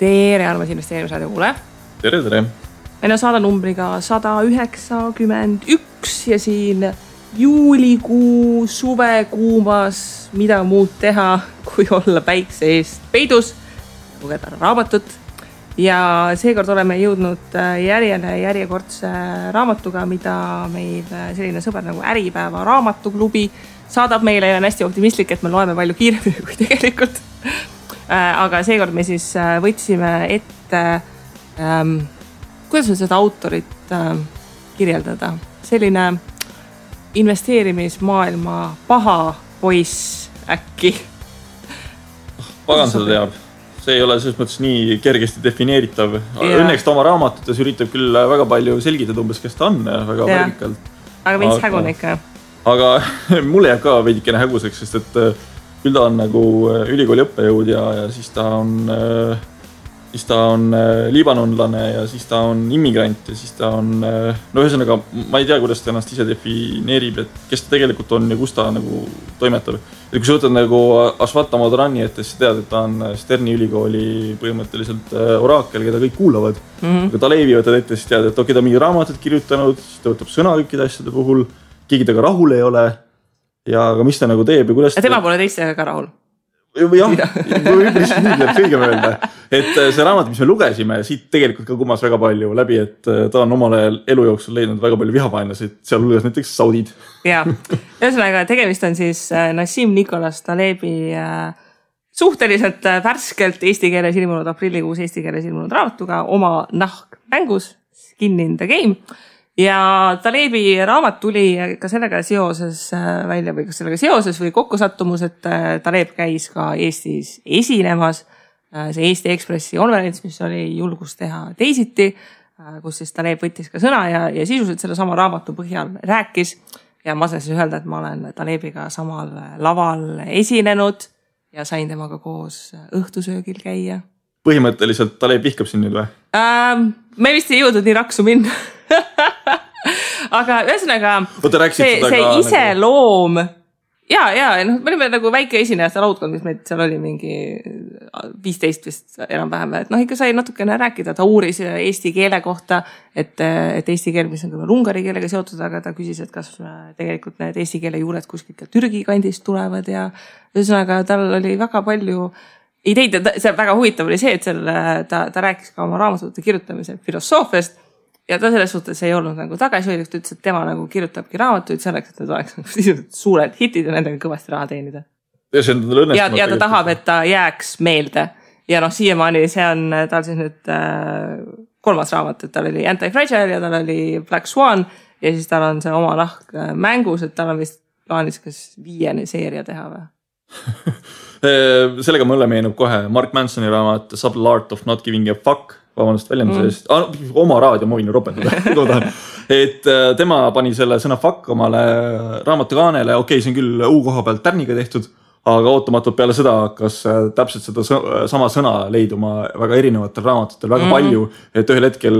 Tere, armas investeerimisraadio kuule. Tere, tere. Meil on saada numbriga 191 ja siin juulikuu suvekuumas mida muud teha, kui olla päikse eest peidus, lugeda raamatut. Ja seekord oleme jõudnud järjekordse raamatuga, mida meil selline sõber nagu Äripäeva raamatuklubi saadab meile ja on hästi optimistlik, et me loeme palju kiiremini kui tegelikult. Aga seekord me siis võtsime ette, kuidas on seda autorit kirjeldada, selline investeerimismaailma paha poiss äkki. Pagan seda teab. See ei ole selles mõttes nii kergesti defineeritav. Õnneks ta oma raamatutes üritab küll väga palju selgitada umbes, kes ta on väga värvikalt. Aga veits hägune ikka. Aga mulle jääb ka veidikene häguseks, sest et küll ta on nagu ülikooli õppejõud ja siis ta on liibanonlane ja siis ta on immigrant ja siis ta on, no ühesõnaga, ma ei tea, kuidas ta ennast ise defineerib, et kes ta tegelikult on ja kus ta nagu toimetab. Ja kui sa võtad nagu Ashwata Madhrani, et sa tead, et ta on Sterni ülikooli põhimõtteliselt oraakel, keda kõik kuulavad. Aga Talevi võtad ette, siis tead, et ta on mingi raamatut kirjutanud, siis ta võtab sõna kõikide asjade puhul, keegi taga rahul ei ole ja aga mis ta nagu teeb ja kuidas... Tema pole teistega ka rahul. Jah, lihtsalt nii tuleb kõigem öelda. Et see raamat, mis me lugesime, siit tegelikult ka kumas väga palju läbi, et ta on omal ajal elu jooksul leidnud väga palju vihapainlasid, seal hulgas näiteks saudid. Jaa, ühesõnaga tegemist on siis Nassim Nicholas Talebi suhteliselt värskelt eesti keeles ilmunud aprillikuus eesti keeles ilmunud raamatuga oma nahk mängus, Skin in the Game. Ja Talebi raamat tuli ka sellega seoses välja või kas sellega seoses või kokkusattumus, et Taleb käis ka Eestis esinemas. See Eesti Ekspressi konverents, mis oli julgus teha teisiti, kus siis Taleb võttis ka sõna ja sisuliselt selle sama raamatu põhjal rääkis. Ja ma saan siis öelda, et ma olen Talebiga samal laval esinenud ja sain temaga koos õhtusöögil käia. Põhimõtteliselt Taleb vihkab siin nüüd või? Me vist ei jõudnud nii raksu minna. Aga ühesõnaga see iseloom me olime nagu väike esinejate laudkond, mis meid seal oli mingi 15 vist enam-vähem, et ikka sai natukene rääkida, ta uuris eesti keele kohta, et eesti keel, mis on küll ungari keelega seotud, aga ta küsis, et kas tegelikult need eesti keele juured kuskilt ka Türgi kandist tulevad ja ühesõnaga tal oli väga palju ideid ja see väga huvitav oli see, et ta rääkis ka oma raamatute kirjutamise filosoofiast ja ta selles suhtes ei olnud nagu tagasihoidlik, ta ütles, et tema nagu kirjutabki raamatuid selleks, et need oleks suured hitid ja nendega kõvasti raha teenida. Ja ta tahab, et ta jääks meelde. Ja siiamaani see on tal siis nüüd 3. raamat, et tal oli Anti-Fragile ja tal oli Black Swan ja siis tal on see oma nahk mängus, et tal on vist plaanis kas 5. seeria teha või? Sellega mulle meenub kohe Mark Mansoni raamat Subtle Art of Not Giving a Fuck, vabandust väljenduse eest, oma raadio ma võin ju ropetada, et tema pani selle sõna fuck omale raamatukaanele, see on küll U-koha pealt tärniga tehtud, aga ootamatult peale seda hakkas täpselt seda sama sõna leiduma väga erinevatel raamatutel väga palju, et ühel hetkel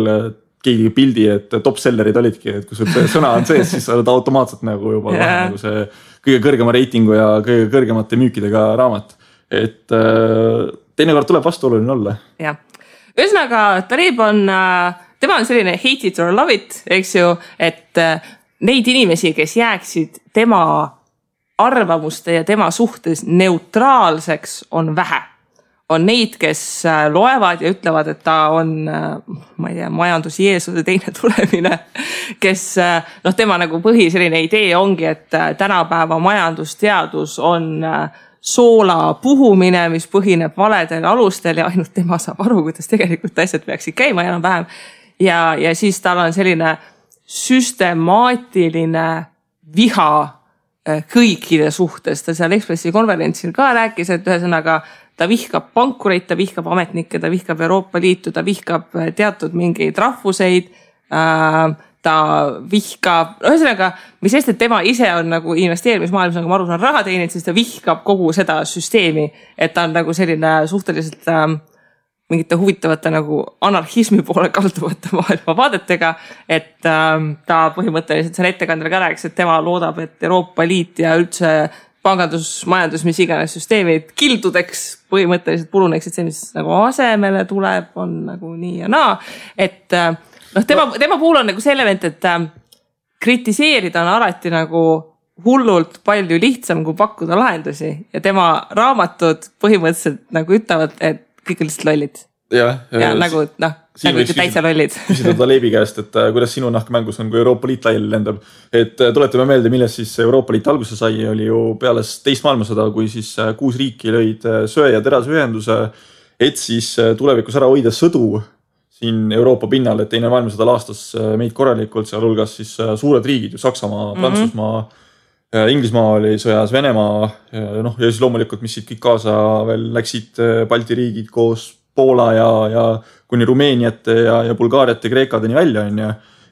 keegi pildi, et top-sellerid olidki, et kui sul sõna on sees, siis oled automaatselt nagu juba nagu see kõige kõrgema reitingu ja kõige kõrgemate müükidega raamat. Et teinekord tuleb vastuoluline olla. Jah. Ühesõnaga, Taleb tema on selline hate it or love it, eks ju, et neid inimesi, kes jääksid tema arvamuste ja tema suhtes neutraalseks, on vähe. On neid, kes loevad ja ütlevad, et ta on, ma ei tea, majandusjeesuse teine tulemine, kes, tema nagu põhi selline idee ongi, et tänapäeva majandusteadus on soola puhumine, mis põhineb valedel alustel ja ainult tema saab aru, kuidas tegelikult asjad peaksid käima enam-vähem. Ja siis tal on selline süstemaatiline viha kõikide suhtes. Ta seal Ekspressi konverentsil ka rääkis, et ühesõnaga ta vihkab pankureid, ta vihkab ametnikke, ta vihkab Euroopa Liitu, ta vihkab teatud mingeid rahvuseid, ta vihkab, ühesõnaga, mis sest, et tema ise on nagu investeerimismaailmas, nagu ma aru saan, raha teenid, siis ta vihkab kogu seda süsteemi, et ta on nagu selline suhteliselt mingite huvitavate nagu anarhismi poole kalduvate maailma vaadetega, et ta põhimõtteliselt seal ettekandel ka rääkis, et tema loodab, et Euroopa Liit ja üldse pangandus, majandus, mis iganes süsteemid kildudeks põhimõtteliselt puruneksid, see, mis nagu asemele tuleb, on nagu nii ja naa. Et tema puhul on nagu see element, et kritiseerida on alati nagu hullult palju lihtsam, kui pakkuda lahendusi ja tema raamatud põhimõtteliselt nagu ütlevad, et kõik on lihtsalt lollid. Ja nagu täitsa lollid. Küsida Talebi käest, et kuidas sinu nahkmängus on, kui Euroopa Liit laiali lendab. Et tuletame meelde, milles siis Euroopa Liit alguse sai, oli ju peale teist maailmasõda, kui siis 6 riiki lõid söe- ja terasühenduse, et siis tulevikus ära hoida sõdu siin Euroopa pinnal, et teine maailmasõda laastas meid korralikult, seal hulgas siis suured riigid, ju Saksamaa, Prantsusmaa, Inglismaa oli sõjas, Venemaa, ja siis loomulikult, mis siit kõik kaasa veel läksid Balti riigid koos Poola ja kuni Rumeeniat ja Bulgaariat ja Kreekadeni välja on.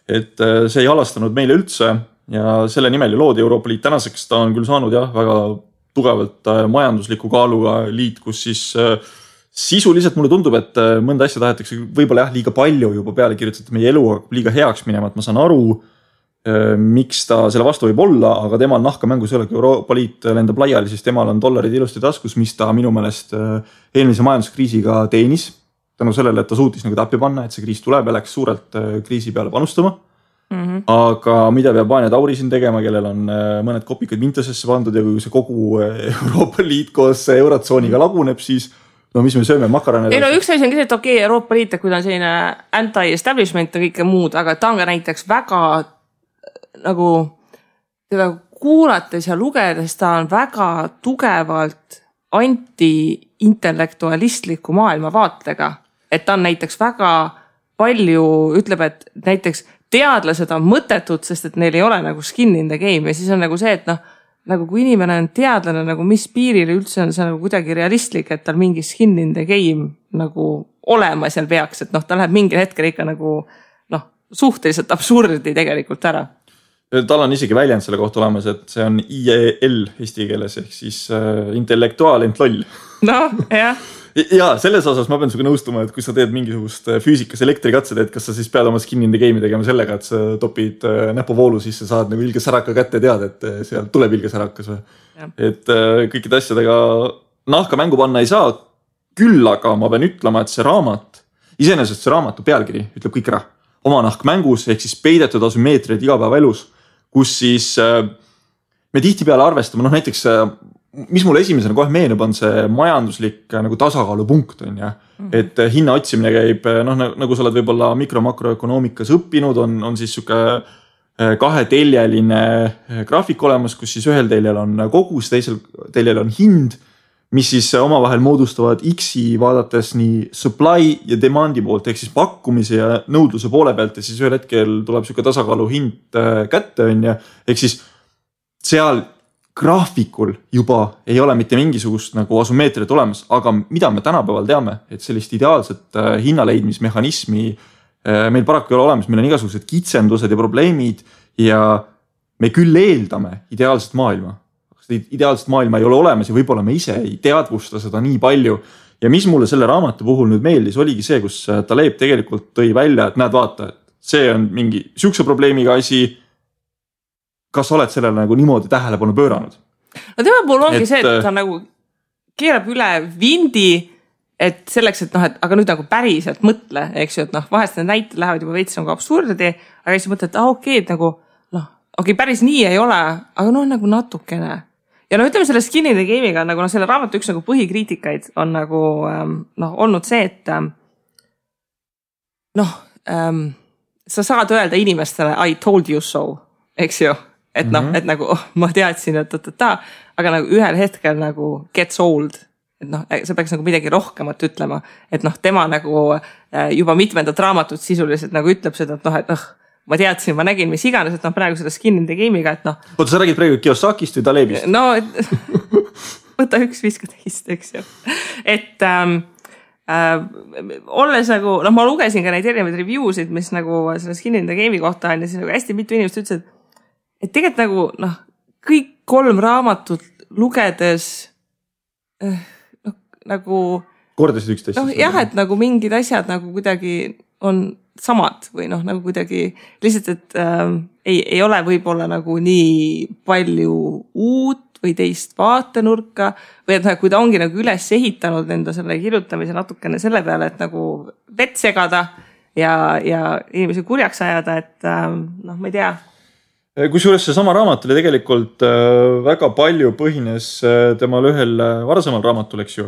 Et see ei halastanud meile üldse ja selle nimel ju loodi Euroopa Liit. Tänaseks ta on küll saanud väga tugevalt majandusliku kaaluga liit, kus siis sisuliselt mulle tundub, et mõnda asja tahetakse võib-olla liiga palju juba peale kirjutatud meie elu liiga heaks minema, et ma saan aru, miks ta selle vastu võib olla, aga temal nahkamängus ei ole, kui Euroopa Liit lendab laiali, siis temal on dollarid ilusti taskus, mis ta minu meelest eelmise majanduskriisiga teenis. Tänu sellele, et ta suutis nagu tappi panna, et see kriis tuleb ja läks suurelt kriisi peale panustama. Aga mida peab Vanja Tauri siin tegema, kellel on mõned kopikad Vintasesse pandud ja kui see kogu Euroopa Liit koos eurotsooniga laguneb, siis mis me sööme makarane? Ei üks asi on see, et okei, Euroopa Liit, kui ta on selline anti-establishment ja kõike muud, aga ta on ka näiteks väga nagu teda kuulates ja lugedes ta on väga tugevalt anti-intellektualistliku maailmavaatega. Et ta on näiteks väga palju, ütleb, et näiteks teadlased on mõttetud, sest et neil ei ole nagu skin in the game ja siis on nagu see, et nagu kui inimene on teadlane, nagu mis piiril üldse on see nagu kuidagi realistlik, et tal mingi skin in the game nagu olema seal peaks, et ta läheb mingil hetkel ikka nagu suhteliselt absurdi tegelikult ära. Tal on isegi väljend selle kohta olemas, et see on IEL eesti keeles ehk siis intellektuaal ent loll. Jah. Ja selles osas ma pean suga nõustuma, et kui sa teed mingisugust füüsikas elektrikatsed, et kas sa siis pead oma skin in the game'i tegema sellega, et sa topid näpuvoolu sisse, saad nagu ilge säraka kätte teada, et seal tuleb ilge särakas või. Et kõikide asjadega nahka mängu panna ei saa, küll aga ma pean ütlema, et see raamat, iseenesest see raamatu pealkiri ütleb kõik ära. Oma nahk mängus ehk siis peidetud asümmeetriad igapäevaelus, kus siis me tihti peale arvestame, näiteks mis mulle esimesena kohe meenub on see majanduslik nagu tasakaalupunkt on ja, et hinna otsimine käib, nagu sa oled võib-olla mikro-makroökonoomikas õppinud, on siis suke kaheteljeline graafik olemas, kus siis ühel teljel on kogus, teisel teljel on hind, mis siis omavahel moodustavad X-i vaadates nii supply ja demandi poolt, ehk siis pakkumise ja nõudluse poole pealt ja siis ühel hetkel tuleb suke tasakaalu hind kätte on ja, ehk siis seal graafikul juba ei ole mitte mingisugust nagu asümmeetriat olemas, aga mida me tänapäeval teame, et sellist ideaalset hinnaleidmismehhanismi meil paraku ei ole olemas, meil on igasugused kitsendused ja probleemid ja me küll eeldame ideaalset maailma. Ideaalset maailma ei ole olemas ja võib-olla me ise ei teadvusta seda nii palju. Ja mis mulle selle raamatu puhul nüüd meeldis, oligi see, kus Taleb tegelikult tõi välja, et näed vaata, et see on mingi sihukese probleemiga asi, kas sa oled sellele nagu niimoodi tähelepanu pööranud? Tema puhul ongi see, et ta nagu keerab üle vindi, et selleks, et aga nüüd nagu päriselt mõtle, eks ju, et vahest need näited lähevad juba veits nagu absurdi, aga siis mõtled, et okei, et nagu okei, päris nii ei ole, aga nagu natukene. Ja ütleme selle skin in the game'iga, nagu selle raamatu üks nagu põhikriitikaid on nagu olnud see, et sa saad öelda inimestele I told you so, eks ju. Et et nagu ma teadsin, et aga nagu ühel hetkel nagu gets old, et see peaks nagu midagi rohkemat ütlema, et tema nagu juba mitmendat raamatut sisuliselt nagu ütleb seda, et ma teadsin, ma nägin, mis iganes, et praegu seda skin in the game'iga, et Oota, sa räägid praegu Kiyosakist või Talebist? Võta üks viska teist, eks ju. Et olles nagu, ma lugesin ka neid erinevaid review'sid, mis nagu selle skin in the game'i kohta on ja siis nagu hästi mitu inimest ütles, et tegelikult nagu kõik 3 raamatut lugedes nagu kordasid üksteist. Jah, et nagu mingid asjad nagu kuidagi on samad või nagu kuidagi lihtsalt, et ei ole võib-olla nagu nii palju uut või teist vaatenurka või et kui ta ongi nagu üles ehitanud enda selle kirjutamise natukene selle peale, et nagu vett segada ja inimesi kurjaks ajada, et ma ei tea. Kusjuures see sama raamat oli tegelikult väga palju põhines temal ühel varasemal raamatul, eks ju.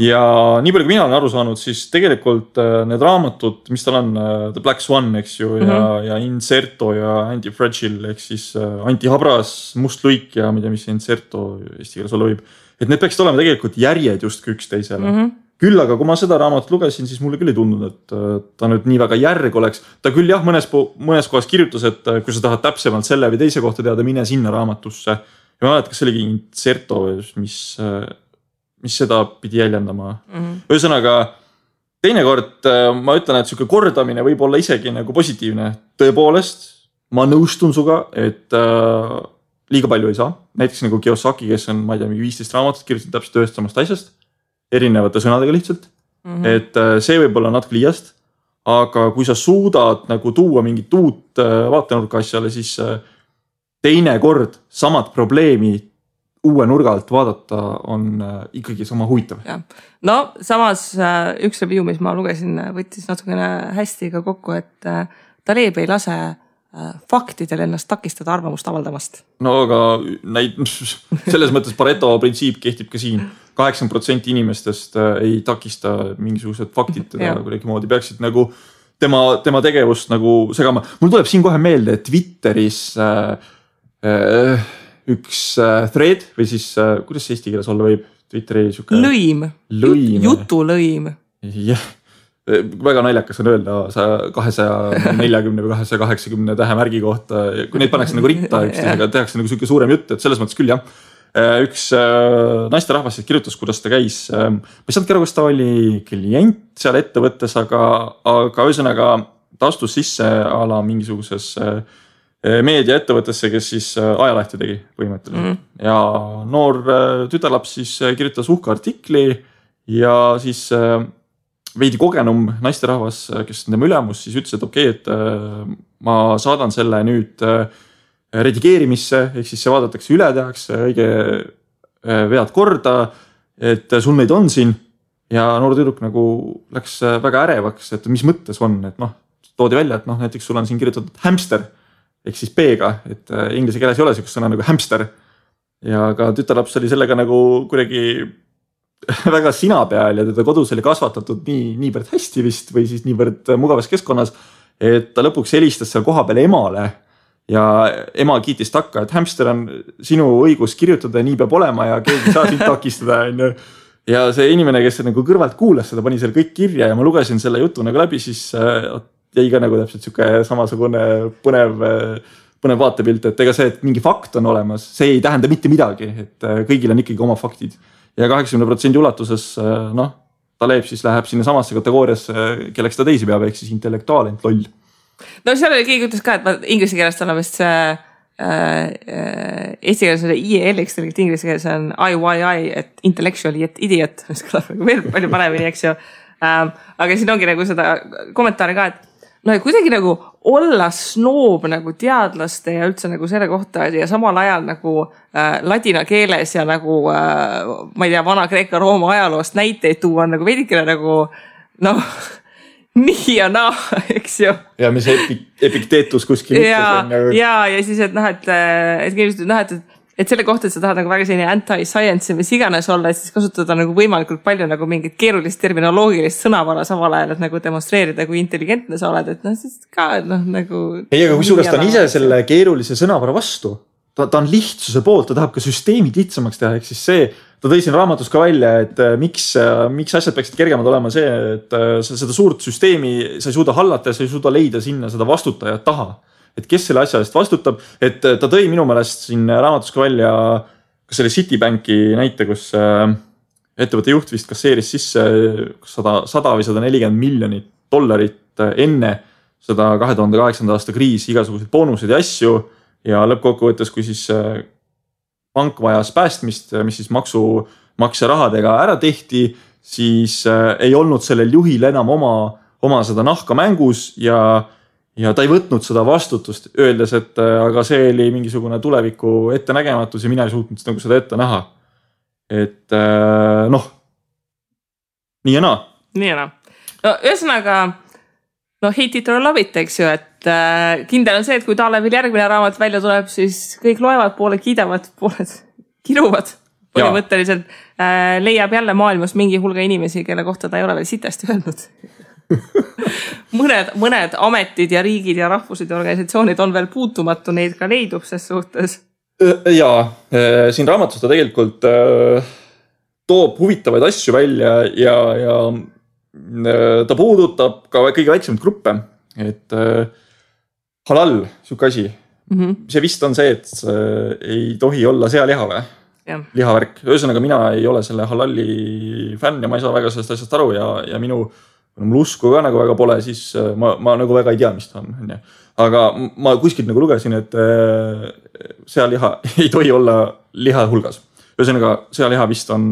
Ja nii palju, kui mina olen aru saanud, siis tegelikult need raamatud, mis tal on, The Black Swan, eks ju, ja Inserto ja Anti-Fragile, ehk siis Antihabras, Must luik ja mida, mis Inserto eesti keeles olla võib. Et need peaksid olema tegelikult järjed justkui üksteisele. Küll aga, kui ma seda raamatut lugesin, siis mulle küll ei tundunud, et ta nüüd nii väga järg oleks. Ta küll jah, mõnes kohas kirjutas, et kui sa tahad täpsemalt selle või teise kohta teada, mine sinna raamatusse. Ja ma mäletan, kas see oligi Inserto, mis seda pidi jäljendama. Ühesõnaga, teinekord ma ütlen, et selline kordamine võib olla isegi nagu positiivne. Tõepoolest, ma nõustun suga, et liiga palju ei saa. Näiteks nagu Kiyosaki, kes on, ma ei tea, 15 raamatut kirjutatud täpselt ühest samast asjast. Erinevate sõnadega lihtsalt, et see võib olla natuke liiast, aga kui sa suudad nagu tuua mingit uut vaatenurka asjale, siis teine kord samad probleemi uue nurga alt vaadata on ikkagi sama huvitav. Ja. No samas üks review, mis ma lugesin, võttis natukene hästi ka kokku, et Taleb ei lase faktidel ennast takistada arvamust avaldamast. No aga selles mõttes Pareto printsiip kehtib ka siin. 80% inimestest ei takista mingisugused faktid teda kuidagi moodi. Peaksid nagu tema tegevust nagu segama. Mul tuleb siin kohe meelde, et Twitteris üks thread või siis, kuidas see eesti keeles olla võib? Twitteri siuke... Lõim. Jutulõim. Jah. Väga naljakas on öelda 240 või 280 tähemärgi kohta, kui neid pannakse nagu ritta, aga tehakse nagu siuke suurem jutt, et selles mõttes küll jah. Üks naisterahvas kirjutas, kuidas ta käis. Ma ei saanud aru, kas ta oli klient seal ettevõttes, aga ühesõnaga ta astus sisse ala mingisuguses meediaettevõttesse, kes siis ajalehti tegi põhimõtteliselt. Ja noor tütarlaps siis kirjutas uhka artikli ja siis veidi kogenum naisterahvas, kes on tema ülemus, siis ütles, et okei, et ma saadan selle nüüd redigeerimisse, ehk siis see vaadatakse üle, tehakse õige vead korda, et sul neid on siin ja noor tüdruk nagu läks väga ärevaks, et mis mõttes on, et toodi välja, et näiteks sul on siin kirjutatud hamster, ehk siis B-ga, et inglise keeles ei ole sellist sõna nagu hamster ja ka tütarlaps oli sellega nagu kuidagi väga sina peal ja teda kodus oli kasvatatud niivõrd hästi vist või siis niivõrd mugavas keskkonnas, et ta lõpuks helistas seal koha peale emale ja ema kiitis takka, et hamster on sinu õigus kirjutada, nii peab olema ja keegi saa sind takistada. Ja see inimene, kes nagu kõrvalt kuulas seda, pani seal kõik kirja ja ma lugesin selle jutu nagu läbi, siis jäi ka nagu täpselt siuke samasugune põnev vaatepilt, et ega see, et mingi fakt on olemas, see ei tähenda mitte midagi, et kõigil on ikkagi oma faktid. Ja 80% ulatuses, Taleb siis läheb sinna samasse kategooriasse, kelleks ta teisi peab, ehk siis intellektuaalent loll. No seal oli keegi ütles ka, et inglise keelest on vist see eesti keeles on IEL-iks, inglise keeles on IYI, et intellectually, et idiot, mis kõlab veel palju paremini, eks ju. Aga siin ongi nagu seda kommentaari ka, et kuidagi nagu olla snoob nagu teadlaste ja üldse nagu selle kohta ja samal ajal nagu ladina keeles ja nagu ma ei tea, vana Kreeka-Rooma ajaloost näiteid tuua on nagu veidikene nagu nii ja naa, eks ju. Ja mis epikteetus kuskil ütles. Ja siis, et selle kohta, et sa tahad nagu väga selline anti-science ja mis iganes olla, et siis kasutada nagu võimalikult palju nagu mingit keerulist terminoloogilist sõnavara samal ajal, et nagu demonstreerida, kui intelligentne sa oled, et siis ka nagu... Ei, aga kui suurest ta on ise selle keerulise sõnavara vastu, ta on lihtsuse poolt, ta tahab ka süsteemid lihtsamaks teha, ehk siis see, ta tõi siin raamatus ka välja, et miks asjad peaksid kergemad olema see, et sa seda suurt süsteemi sa ei suuda hallata ja sa ei suuda leida sinna seda vastutajat taha. Et kes selle asja eest vastutab, et ta tõi minu meelest siin raamatus ka välja kas selle Citibanki näite, kus ettevõtte juht vist kasseeris sisse 100 või 140 miljonit dollarit enne seda 2008. aasta kriisi, igasuguseid boonuseid ja asju ja lõppkokkuvõttes, kui siis pank vajas päästmist, mis siis maksumaksja rahadega ära tehti, siis ei olnud sellel juhil enam oma seda nahka mängus ja ja ta ei võtnud seda vastutust, öeldes, et aga see oli mingisugune tuleviku ettenägematus ja mina ei suutnud nagu seda ette näha. Et noh, nii ja naa. Nii ja naa. No ühesõnaga, no hate it or love it, eks ju, et kindel on see, et kui Talevil järgmine raamat välja tuleb, siis kõik loevad, pooled kiidavad, pooled kiruvad. Põhimõtteliselt leiab jälle maailmas mingi hulga inimesi, kelle kohta ta ei ole veel sitasti öelnud. mõned ametid ja riigid ja rahvused ja organisatsioonid on veel puutumatu, neid ka leidub ses suhtes. Jaa, siin raamatus ta tegelikult toob huvitavaid asju välja ja ta puudutab ka kõige väiksemaid gruppe, et halal, siuke asi. See vist on see, et ei tohi olla sealiha või? Lihavärk. Ühesõnaga, mina ei ole selle halalli fänn ja ma ei saa väga sellest asjast aru ja mul usku ka nagu väga pole, siis ma nagu väga ei tea, mis ta on. Aga ma kuskilt nagu lugesin, et sealiha ei tohi olla liha hulgas. Ühesõnaga, sealiha vist on,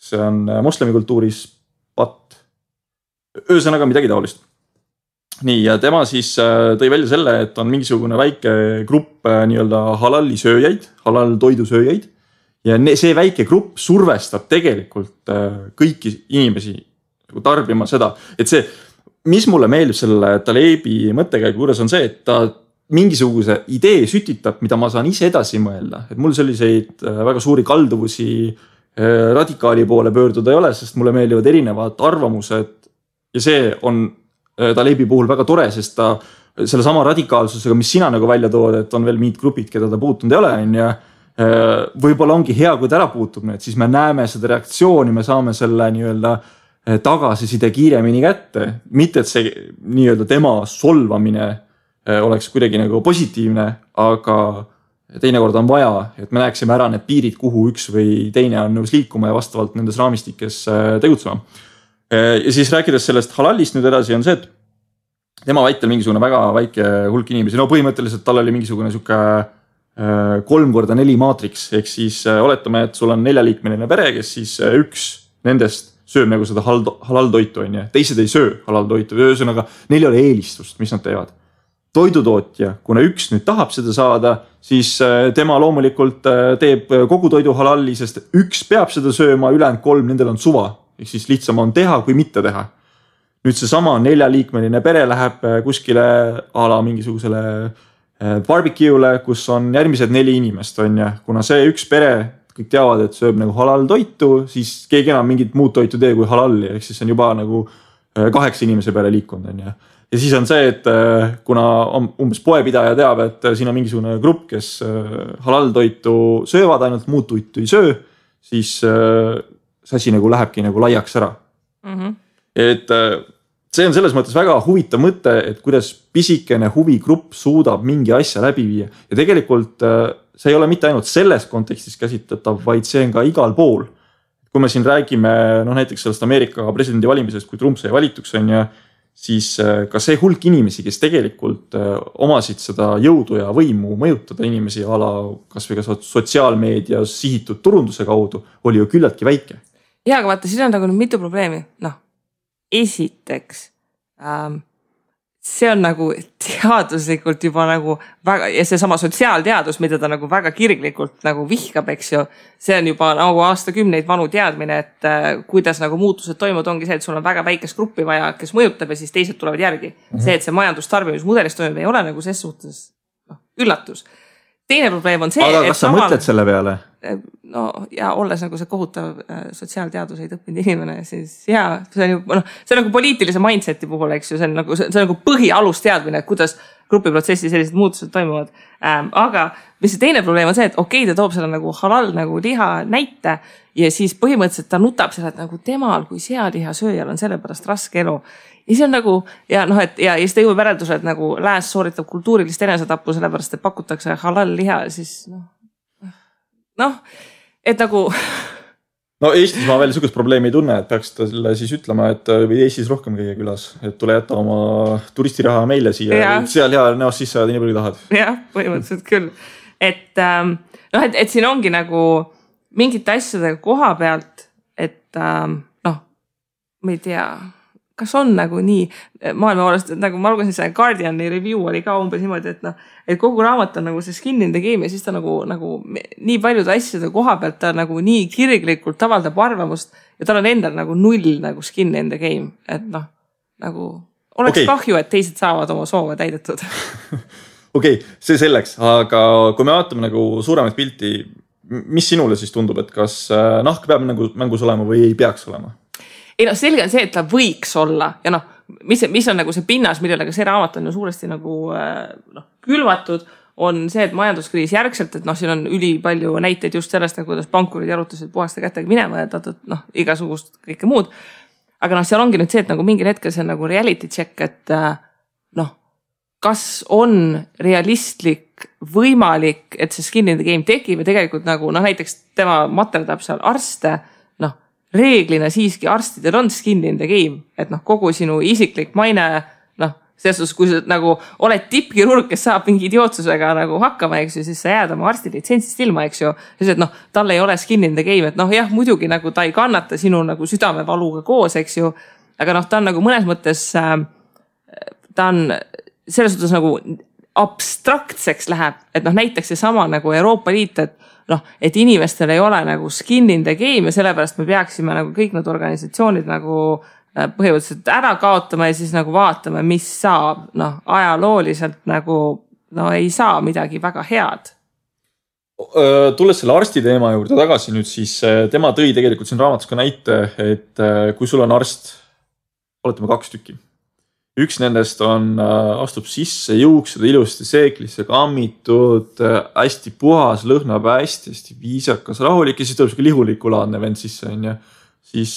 see on moslemikultuuris patt. Ühesõnaga midagi taolist. Nii, ja tema siis tõi välja selle, et on mingisugune väike grupp nii-öelda halalli sööjaid, halal toidusööjaid. Ja see väike grupp survestab tegelikult kõiki inimesi tarbima seda. Et see, mis mulle meeldib selle Talebi mõttekäigu juures on see, et ta mingisuguse idee sütitab, mida ma saan ise edasi mõelda. Et mul selliseid väga suuri kalduvusi radikaali poole pöörduda ei ole, sest mulle meeldivad erinevad arvamused ja see on Talebi puhul väga tore, sest ta selle sama radikaalsusega, mis sina nagu välja tood, et on veel mingid grupid, keda ta puutunud ei ole, ja võib-olla ongi hea, kui ta ära puutub need, siis me näeme seda reaktsiooni, me saame selle nii-öelda tagasiside kiiremini kätte. Mitte, et see nii-öelda tema solvamine oleks kuidagi nagu positiivne, aga teinekord on vaja, et me näeksime ära need piirid, kuhu üks või teine on nõus liikuma ja vastavalt nendes raamistikes tegutsema. Ja siis rääkides sellest halallist nüüd edasi on see, et tema väitel mingisugune väga väike hulk inimesi, no põhimõtteliselt tal oli mingisugune siuke 3x4 maatriks, ehk siis oletame, et sul on 4-liikmeline pere, kes siis üks nendest sööb nagu seda halaltoitu, teised ei söö halaltoitu, ühesõnaga neil ei ole eelistust, mis nad teevad. Toidutootja, kuna üks nüüd tahab seda saada, siis tema loomulikult teeb kogu toidu halalli, sest üks peab seda sööma, ülejäänud 3, nendel on suva, ehk siis lihtsam on teha kui mitte teha. Nüüd see sama 4-liikmeline pere läheb kuskile ala mingisugusele barbecue'le, kus on järgmised 4 inimest, on ja kuna see üks pere, kõik teavad, et sööb nagu halal toitu, siis keegi enam mingit muud toitu tee kui halalli, ehk siis on juba nagu 8 inimese peale liikunud, on ja. Ja siis on see, et kuna umbes poepidaja teab, et siin on mingisugune grupp, kes halal toitu söövad, ainult muud toitu ei söö, siis see asi nagu lähebki nagu laiaks ära. Et see on selles mõttes väga huvitav mõte, et kuidas pisikene huvigrupp suudab mingi asja läbi viia. Ja tegelikult see ei ole mitte ainult selles kontekstis käsitletav, vaid see on ka igal pool. Kui me siin räägime näiteks sellest Ameerika presidendi valimisest, kui Trump sai valituks on ja siis ka see hulk inimesi, kes tegelikult omasid seda jõudu ja võimu mõjutada inimesi ala kas või ka sotsiaalmeedia sihitud turunduse kaudu, oli ju küllaltki väike. Ja, aga vaata, siin on nagu mitu probleemi. Esiteks, see on nagu teaduslikult juba nagu väga, ja see sama sotsiaalteadus, mida ta nagu väga kirglikult nagu vihkab, eks ju, see on juba nagu aastakümneid vanu teadmine, et kuidas nagu muutused toimuvad, ongi see, et sul on väga väikest gruppi vaja, kes mõjutab ja siis teised tulevad järgi. See, et see majandustarbimismudelis toimub, ei ole nagu ses suhtes üllatus. Teine probleem on see, aga kas sa mõtled selle peale? No ja olles nagu see kohutav sotsiaalteaduseid õppinud inimene, siis jaa, see on ju, see on nagu poliitilise mindseti puhul, eks ju, see on nagu põhialusteadmine, et kuidas grupiprotsessi sellised muutused toimuvad. Aga mis see teine probleem on see, et okei, ta toob selle nagu halal nagu liha näite ja siis põhimõtteliselt ta nutab selle, et nagu temal kui sealiha sööjal on sellepärast raske elu. Ja see on nagu, ja siis ta jõuab järelduse, et nagu lääs sooritab kultuurilist enesetappu sellepärast, et pakutakse halal liha, siis et nagu... No Eestis ma veel sugust probleemi ei tunne, et peaks ta selle siis ütlema, et või Eestis rohkem käia külas, et tule jätta oma turistiraha meile siia, seal hea näost sisse ajad nii palju tahad. Jah, põhimõtteliselt küll. Et siin ongi nagu mingite asjadega koha pealt, et ma ei tea, kas on nagu nii maailma poolest, et nagu ma lugesin see Guardiani review oli ka umbes niimoodi, et kogu raamat on nagu see skin in the game ja siis ta nagu nii paljude asjade koha pealt ta nagu nii kirglikult avaldab arvamust ja tal on endal nagu null nagu skin in the game, et nagu oleks kahju, et teised saavad oma soove täidetud. Okei, see selleks, aga kui me vaatame nagu suuremat pilti, mis sinule siis tundub, et kas nahk peab nagu mängus olema või ei peaks olema? Ei selge on see, et ta võiks olla ja mis on nagu see pinnas, millele ka see raamat on ju suuresti nagu külvatud, on see, et majanduskriis järgselt, et siin on üli palju näiteid just sellest, kuidas pankurid jarutasid puhaste kätega minema ja igasugust kõike muud. Aga seal ongi nüüd see, et nagu mingil hetkel see on nagu reality check, et kas on realistlik, võimalik, et see skin in the game tekib ja tegelikult nagu näiteks tema materdab seal arste, reeglina siiski arstidel on skin in the game, et kogu sinu isiklik maine, selles kui sa nagu oled tippkirurg, kes saab mingi idiootsusega nagu hakkama, eks ju, siis sa jääd oma arsti litsentsist ilma, eks ju, siis et tal ei ole skin in the game, et jah, muidugi nagu ta ei kannata sinu nagu südamevaluga koos, eks ju, aga ta on nagu mõnes mõttes, ta on selles suhtes nagu abstraktseks läheb, et näiteks see sama nagu Euroopa Liit, et inimestel ei ole nagu skin in the game ja sellepärast me peaksime nagu kõik need organisatsioonid nagu põhimõtteliselt ära kaotama ja siis nagu vaatame, mis saab, ajalooliselt nagu ei saa midagi väga head. Tulles selle arsti teema juurde tagasi nüüd, siis tema tõi tegelikult siin raamatus ka näite, et kui sul on arst, oletame 2 tükki. Üks nendest astub sisse, juuksed ilusti seeklisse kammitud, hästi puhas, lõhnab hästi viisakas, rahulik ja siis tuleb siuke lihulikulaadne vend sisse, on ju. Siis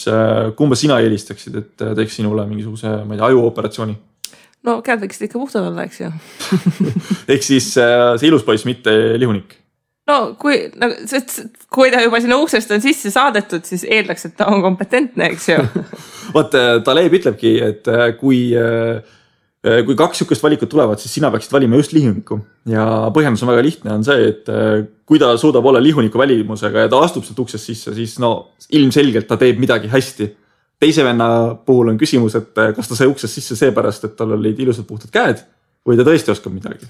kumba sina eelistaksid, et teeks sinule mingisuguse, ma ei tea, ajuoperatsiooni? No käed võiksid ikka puhtad olla, eks ju. Ehk siis see ilus poiss, mitte lihunik. Kui ta juba sinna uksest on sisse saadetud, siis eeldaks, et ta on kompetentne, eks ju. Vaat, Taleb ütlebki, et kui 2 sükest valikut tulevad, siis sina peaksid valima just lihuniku. Ja põhjendus on väga lihtne, on see, et kui ta suudab olla lihuniku välimusega ja ta astub sealt uksest sisse, siis ilmselgelt ta teeb midagi hästi. Teise venna puhul on küsimus, et kas ta sai uksest sisse seepärast, et tal olid ilusad puhtad käed või ta tõesti oskab midagi.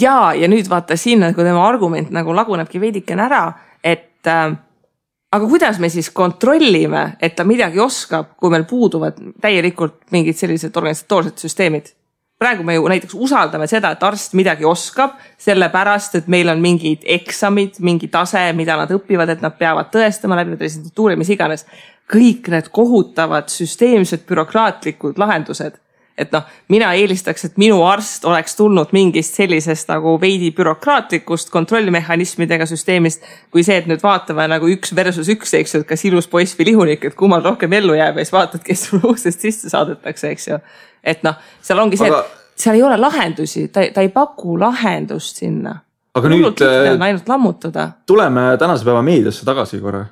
Ja nüüd vaata siin, kui tema argument nagu lagunebki veidikene ära, et aga kuidas me siis kontrollime, et ta midagi oskab, kui meil puuduvad täielikult mingid sellised organisatoorsed süsteemid. Praegu me ju näiteks usaldame seda, et arst midagi oskab, sellepärast, et meil on mingid eksamid, mingi tase, mida nad õpivad, et nad peavad tõestama läbi residentuuri, mis iganes. Kõik need kohutavad süsteemsed bürokraatlikud lahendused. Et mina eelistaks, et minu arst oleks tulnud mingist sellisest nagu veidi bürokraatlikust kontrollimehhanismidega süsteemist, kui see, et nüüd vaatame nagu 1 versus 1, eks ju, et kas ilus poiss või lihunik, et kummal rohkem ellu jääb ja siis vaatad, kes sulle uksest sisse saadetakse, eks ju. Et seal ongi see, et seal ei ole lahendusi, ta ei paku lahendust sinna. Aga nüüd ainult lammutada. Tuleme tänase päeva meediasse tagasi korra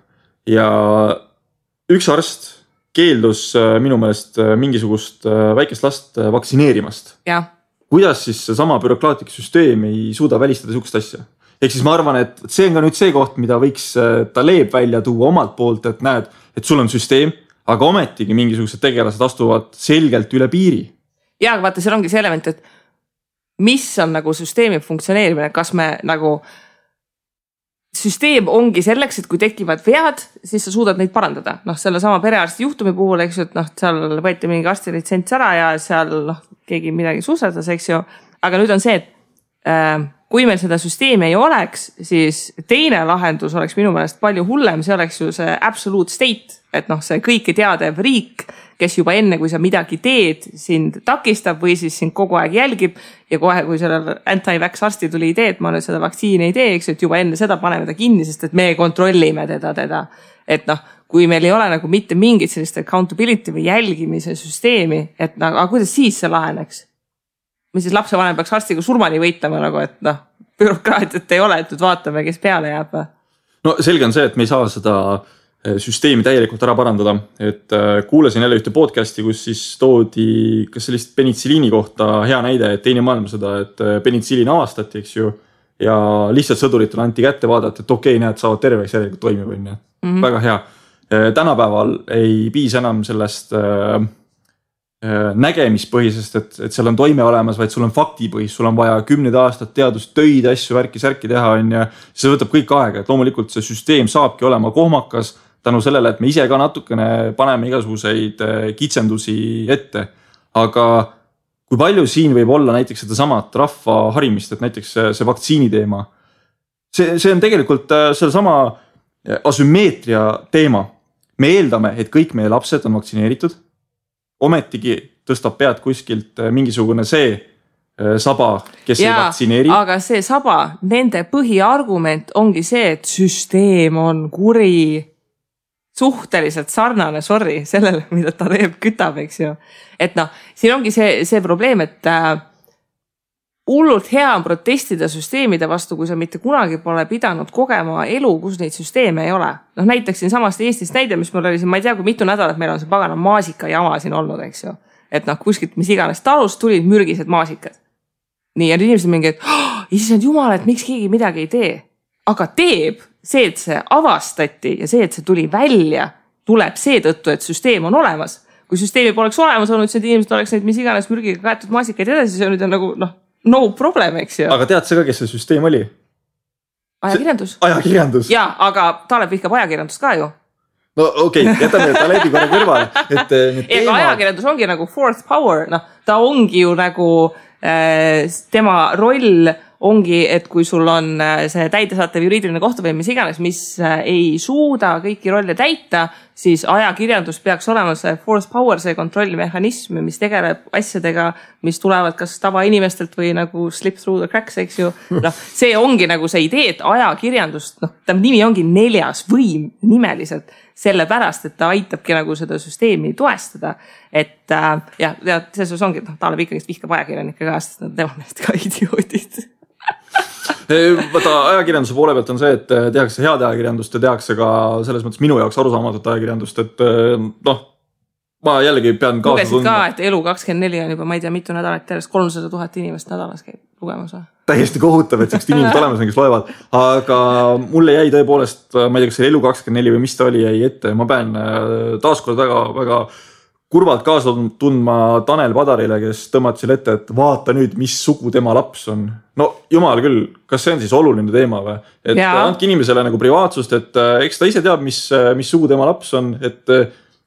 ja üks arst keeldus minu meelest mingisugust väikest last vaktsineerimast. Ja. Kuidas siis sama bürokraatlik süsteem ei suuda välistada sihukest asja? Ehk siis ma arvan, et see on ka nüüd see koht, mida võiks Taleb välja tuua omalt poolt, et näed, et sul on süsteem, aga ometigi mingisugused tegelased astuvad selgelt üle piiri. Ja, aga vaata, seal ongi see element, et mis on nagu süsteemi funktsioneerimine, kas me nagu süsteem ongi selleks, et kui tekivad vead, siis sa suudad neid parandada. Selle sama perearsti juhtumi puhul, eks ju, et seal võeti mingi arsti litsents ära ja seal keegi midagi suusatas, eks ju. Aga nüüd on see, et kui meil seda süsteemi ei oleks, siis teine lahendus oleks minu meelest palju hullem, see oleks ju see absolute state, et see kõike teadev riik, kes juba enne, kui sa midagi teed, sind takistab või siis sind kogu aeg jälgib ja kohe, kui sellel anti-vax arsti tuli idee, et ma nüüd seda vaktsiini ei tee, eks, et juba enne seda paneme ta kinni, sest et me kontrollime teda. Et kui meil ei ole nagu mitte mingit sellist accountability või jälgimise süsteemi, et aga kuidas siis see laheneks? Mis siis lapsevanem peaks arstiga surmani võitlema, nagu, et bürokraatiat ei ole, et nüüd vaatame, kes peale jääb. No selge on see, et me ei saa seda süsteemi täielikult ära parandada, et kuulasin jälle ühte podcasti, kus siis toodi kas sellist penitsiliini kohta hea näide, et teine maailmasõda, et penitsiliin avastati, eks ju, ja lihtsalt sõduritele anti kätte vaadata, et okei, näed, saavad terveks järelikult toimib, on ju. Väga hea. Tänapäeval ei piisa enam sellest nägemispõhisest, et seal on toime olemas, vaid sul on faktipõhis, sul on vaja 10 aastat teadustöid, asju, värki teha, on ja see võtab kõik aega, et loomulikult see süsteem saabki olema kohmakas tänu sellele, et me ise ka natukene paneme igasuguseid kitsendusi ette. Aga kui palju siin võib olla näiteks seda samat rahva harimist, et näiteks see vaktsiini teema, see on tegelikult selle sama asümmeetria teema. Me eeldame, et kõik meie lapsed on vaktsineeritud. Ometigi tõstab pead kuskilt mingisugune see saba, kes ei vaktsineeri. Aga see saba, nende põhiargument ongi see, et süsteem on kuri, suhteliselt sarnane, sellele, mida ta teeb, kütab, eks ju. Et siin ongi see probleem, et hullult hea on protestida süsteemide vastu, kui sa mitte kunagi pole pidanud kogema elu, kus neid süsteeme ei ole. Näiteks siin samast Eestist näide, mis mul oli siin, ma ei tea, kui mitu nädalat meil on see pagana maasika jama siin olnud, eks ju. Et kuskilt mis iganes talust tulid mürgised maasikad. Nii, ja inimesed mingi, et issand jumal, et miks keegi midagi ei tee. Aga teeb see, et see avastati ja see, et see tuli välja, tuleb seetõttu, et süsteem on olemas. Kui süsteemi poleks olemas olnud, siis inimesed oleks neid mis iganes mürgiga kaetud maasikaid edasi, see on nüüd nagu, no problem, eks ju. Aga tead sa ka, kes see süsteem oli? Ajakirjandus. Jaa, aga Talep vihkab ajakirjandust ka ju. No okei, jätame Talebi korra kõrvale. Ega ajakirjandus ongi nagu fourth power. Ta ongi ju nagu tema roll ongi, et kui sul on see täidesaatev juriidiline kohtuvõim, mis iganes, mis ei suuda kõiki rolle täita, siis ajakirjandus peaks olema see fourth power, see kontrollimehhanism, mis tegeleb asjadega, mis tulevad kas tavainimestelt või nagu slip through the cracks, eks ju. See ongi nagu see idee, et ajakirjandust, ta nimi ongi 4. võim nimeliselt, sellepärast, et ta aitabki nagu seda süsteemi toestada. Et selles ongi, Talep ikkagi vihkab ajakirjanike ka, sest nad teevad neist ka idioodid. Võta ajakirjanduse poole pealt on see, et tehakse head ajakirjandust ja tehakse ka selles mõttes minu jaoks arusaamatut ajakirjandust, et ma jällegi pean kaasa lugesid ka, et Elu24 on juba, ma ei tea, mitu nädalat järjest 300 000 inimest nädalas käib lugemas. Täiesti kohutav, et sellised inimesed olemas, kes loevad, aga mulle jäi tõepoolest, ma ei tea, kas see Elu24 või mis ta oli, jäi ette, ma pean taaskord väga kurvalt kaasa tundma Tanel Padarile, kes tõmmati selle ette, et vaata nüüd, mis sugu tema laps on. No jumal küll, kas see on siis oluline teema või? Et andke inimesele nagu privaatsust, et eks ta ise teab, mis sugu tema laps on, et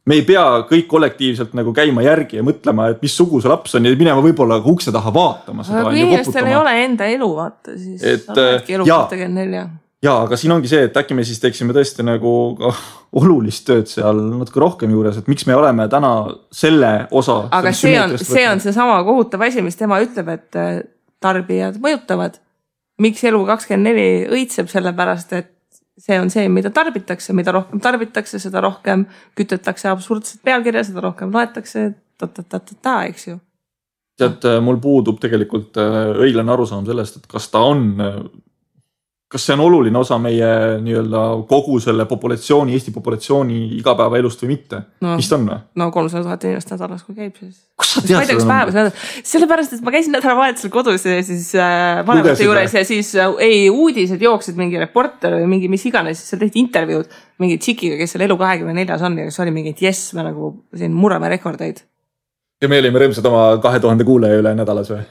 me ei pea kõik kollektiivselt nagu käima järgi ja mõtlema, et mis sugu see laps on ja minema võib-olla ukse taha vaatama seda. Aga kui inimestel ei ole enda elu vaata, siis saadki elu 24. Jaa, aga siin ongi see, et äkki me siis teeksime tõesti nagu olulist tööd seal natuke rohkem juures, et miks me oleme täna selle osa. Aga see on see sama kohutav asi, mis tema ütleb, et tarbijad mõjutavad. Miks Elu24 õitseb selle pärast, et see on see, mida tarbitakse, mida rohkem tarbitakse, seda rohkem kütetakse absurdset pealkirja, seda rohkem loetakse, eks ju. Tead, mul puudub tegelikult õiglane arusaam sellest, et kas see on oluline osa meie nii-öelda kogu selle populatsiooni, Eesti populatsiooni igapäeva elust või mitte? Mis ta on? No 300 000 inimest nädalas, kui käib siis. Kus sa tead seda? Sellepärast, et ma käisin nädalavahetusel kodus ja siis vanemate juures ja siis uudised jooksid mingi reporter või mingi mis iganes, siis seal tehti intervjuud mingi tšikiga, kes seal Elu24 on ja kes oli mingi, et jess, me nagu siin murrame rekordeid. Ja me olime rõõmsad oma 2000 kuulaja üle nädalas või?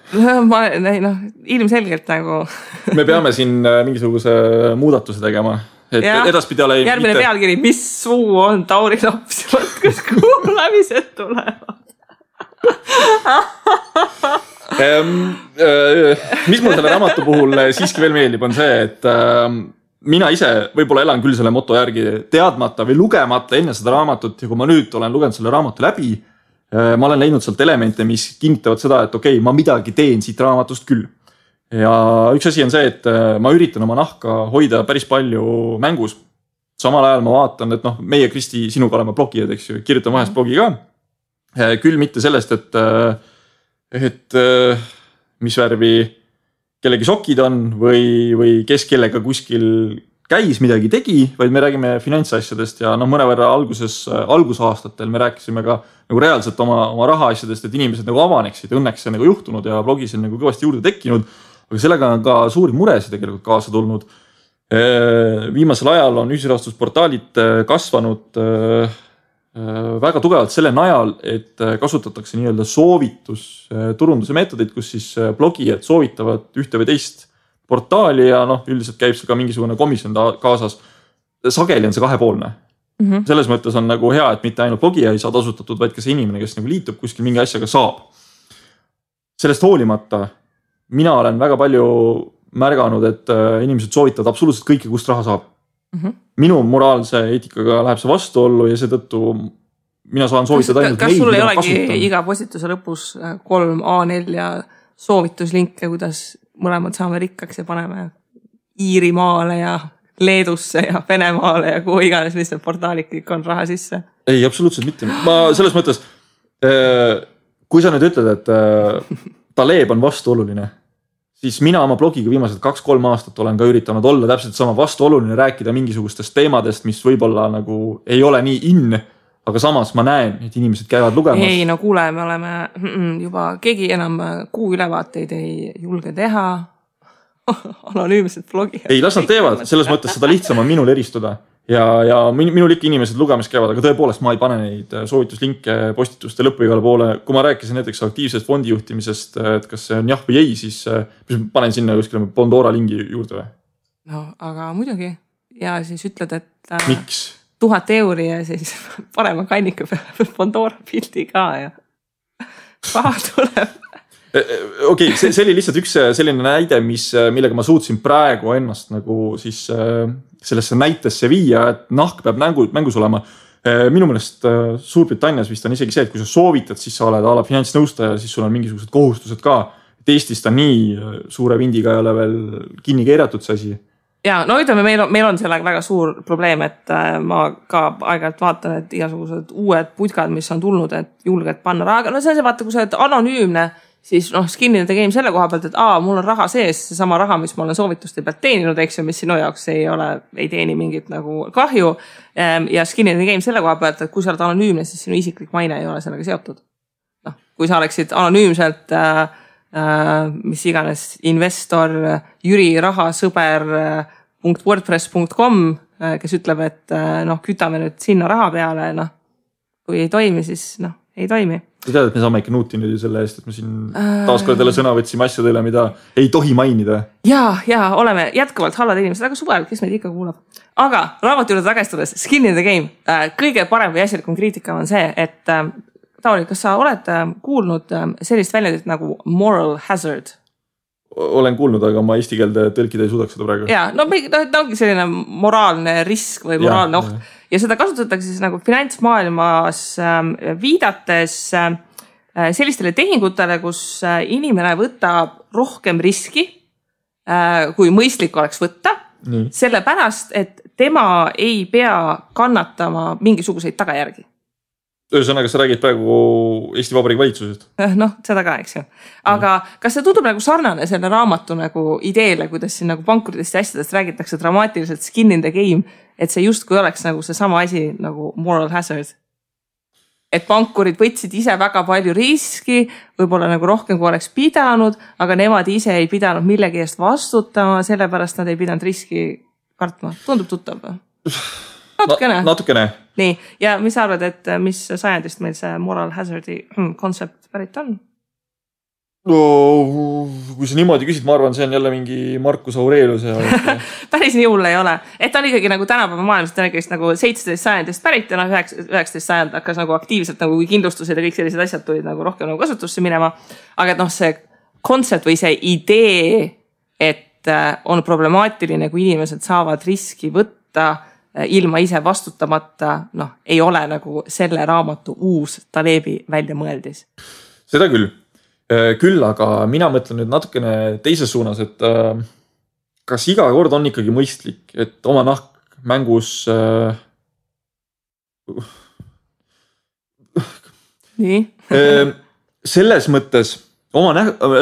Ilmselgelt nagu. Me peame siin mingisuguse muudatuse tegema. Et edaspidi ole järgmine pealkiri, mis suu on Tauri laps? Kus kuulamised tulevad? Mis mul selle raamatu puhul siiski veel meeldib, on see, et mina ise võib-olla elan küll selle moto järgi teadmata või lugemata enne seda raamatut ja kui ma nüüd olen lugenud selle raamatu läbi, ma olen leidnud sealt elemente, mis kinnitavad seda, et okei, ma midagi teen siit raamatust küll. Ja üks asi on see, et ma üritan oma nahka hoida päris palju mängus. Samal ajal ma vaatan, et meie Kristi sinuga oleme blogijad, eks ju, kirjutan vahest blogi ka. Küll mitte sellest, et mis värvi kellegi sokid on või kes kellega kuskil käis midagi tegi, vaid me räägime finantsasjadest ja mõnevõrra algusaastatel me rääkisime ka nagu reaalselt oma rahaasjadest, et inimesed nagu avaneksid, õnneks see nagu juhtunud ja blogis on nagu kõvasti juurde tekkinud, aga sellega on ka suuri muresid tegelikult kaasa tulnud. Viimasel ajal on ühisrahastusportaalid kasvanud väga tugevalt selle najal, et kasutatakse nii-öelda soovitusturunduse meetodid, kus siis blogijad soovitavad ühte või teist portaali ja üldiselt käib see ka mingisugune komisjon kaasas. Sageli on see kahepoolne. Selles mõttes on nagu hea, et mitte ainult blogija ei saa tasutatud, vaid ka see inimene, kes nagu liitub kuskil mingi asjaga saab. Sellest hoolimata mina olen väga palju märganud, et inimesed soovitavad absoluutselt kõike, kust raha saab. Minu moraalse eetikaga läheb see vastuollu ja seetõttu mina saan soovitada ainult kas sul ei olegi iga postituse lõpus 3 A4 soovituslinke, kuidas mõlemad saame rikkaks ja paneme Iirimaale ja Leedusse ja Venemaale ja kuhu iganes, mis need portaalid kõik on raha sisse? Ei, absoluutselt mitte. Ma selles mõttes, kui sa nüüd ütled, et Taleb on vastuoluline, siis mina oma blogiga viimased 2-3 aastat olen ka üritanud olla täpselt sama vastuoluline, rääkida mingisugustest teemadest, mis võib-olla nagu ei ole nii in, aga samas ma näen, et inimesed käivad lugemas. Ei, no kuule, me oleme juba keegi enam kuu ülevaateid ei julge teha. Anonüümsed blogijad. Ei, las nad teevad, selles mõttes seda lihtsam on minul eristuda. Ja minul ikka inimesed lugemas käivad, aga tõepoolest ma ei pane neid soovituslinke postituste lõppu igale poole. Kui ma rääkisin näiteks aktiivsest fondijuhtimisest, et kas see on jah või ei, siis panen sinna kuskile Pandora lingi juurde või? No, aga muidugi. Ja siis ütled, et miks? 1000 € ja siis parema kannika peale Pandora pildi ka ja raha tuleb. Okei, see oli lihtsalt üks selline näide, millega ma suutsin praegu ennast nagu siis sellesse näitesse viia, et nahk peab mängus olema. Minu meelest Suurbritannias vist on isegi see, et kui sa soovitad, siis sa oled ala finantsnõustaja, siis sul on mingisugused kohustused ka. Et Eestis ta nii suure vindiga ei ole veel kinni keeratud see asi. Ja, no ütleme, meil on sellega väga suur probleem, et ma ka aeg-ajalt vaatan, et igasugused uued putkad, mis on tulnud, et julged panna raha. No see on see, vaata, kui sa oled anonüümne, siis skin in the game selle koha pealt, et mul on raha sees, see sama raha, mis ma olen soovituste pealt teeninud, eks ju, mis sinu jaoks ei teeni mingit nagu kahju. Ja skin in the game selle koha pealt, et kui sa oled anonüümne, siis sinu isiklik maine ei ole sellega seotud. Kui sa oleksid anonüümselt mis iganes investor, Jüri rahasõber .wordpress.com, kes ütleb, et kütame nüüd sinna raha peale, kui ei toimi, siis ei toimi. Sa tead, et me saame ikka nuuti nüüd selle eest, et me siin taaskord jälle sõna võtsime asjadele, mida ei tohi mainida. Ja oleme jätkuvalt hallad inimesed, aga suvel, kes meid ikka kuulab. Aga raamatu juurde tagastudes, skin in the game. Kõige parem või asjalikum kriitika on see, et Tauri, kas sa oled kuulnud sellist väljendit nagu moral hazard? Olen kuulnud, aga ma eesti keelde tõlkida ei suudaks seda praegu. Ja, ta ongi selline moraalne risk või moraalne oht. Ja seda kasutatakse siis nagu finantsmaailmas viidates sellistele tehingutele, kus inimene võtab rohkem riski, kui mõistlik oleks võtta, sellepärast, et tema ei pea kannatama mingisuguseid tagajärgi. Ühesõnaga, sa räägid praegu Eesti Vabariigi valitsusest? Seda ka, eks ju. Aga kas see tundub nagu sarnane selle raamatu nagu ideele, kuidas siin nagu pankurdest ja asjadest räägitakse dramaatiliselt skin in the game, et see justkui oleks nagu see sama asi nagu moral hazard? Et pankurid võtsid ise väga palju riski, võib-olla nagu rohkem kui oleks pidanud, aga nemad ise ei pidanud millegi eest vastutama, sellepärast nad ei pidanud riski kartma. Tundub tuttav või? Natukene. Nii, ja mis sa arvad, et mis sajandist meil see moral hazardi konsept pärit on? No, kui sa niimoodi küsid, ma arvan, see on jälle mingi Marcus Aurelius. Päris nii hull ei ole. Et ta on ikkagi nagu tänapäeva maailmast nagu 17 sajandist pärit ja 19 sajand hakkas nagu aktiivselt nagu kindlustused ja kõik sellised asjad tulid nagu rohkem nagu kasutusse minema. Aga see konsept või see idee, et on problemaatiline, kui inimesed saavad riski võtta ilma ise vastutamata, ei ole nagu selle raamatu uus Talebi välja mõeldis. Seda küll. Küll, aga mina mõtlen nüüd natukene teises suunas, et kas iga kord on ikkagi mõistlik, et oma nahk mängus nii? Selles mõttes oma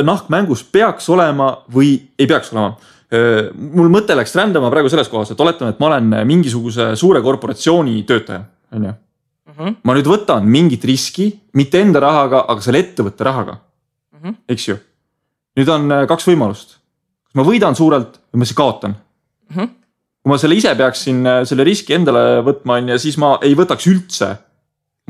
nahk mängus peaks olema või ei peaks olema. Mul mõte läks rändama praegu selles kohas, et oletame, et ma olen mingisuguse suure korporatsiooni töötaja. Ma nüüd võtan mingit riski, mitte enda rahaga, aga selle ettevõtte rahaga. Eks ju? Nüüd on 2 võimalust. Kas ma võidan suurelt või ma siis kaotan? Kui ma selle ise peaksin selle riski endale võtma, ja siis ma ei võtaks üldse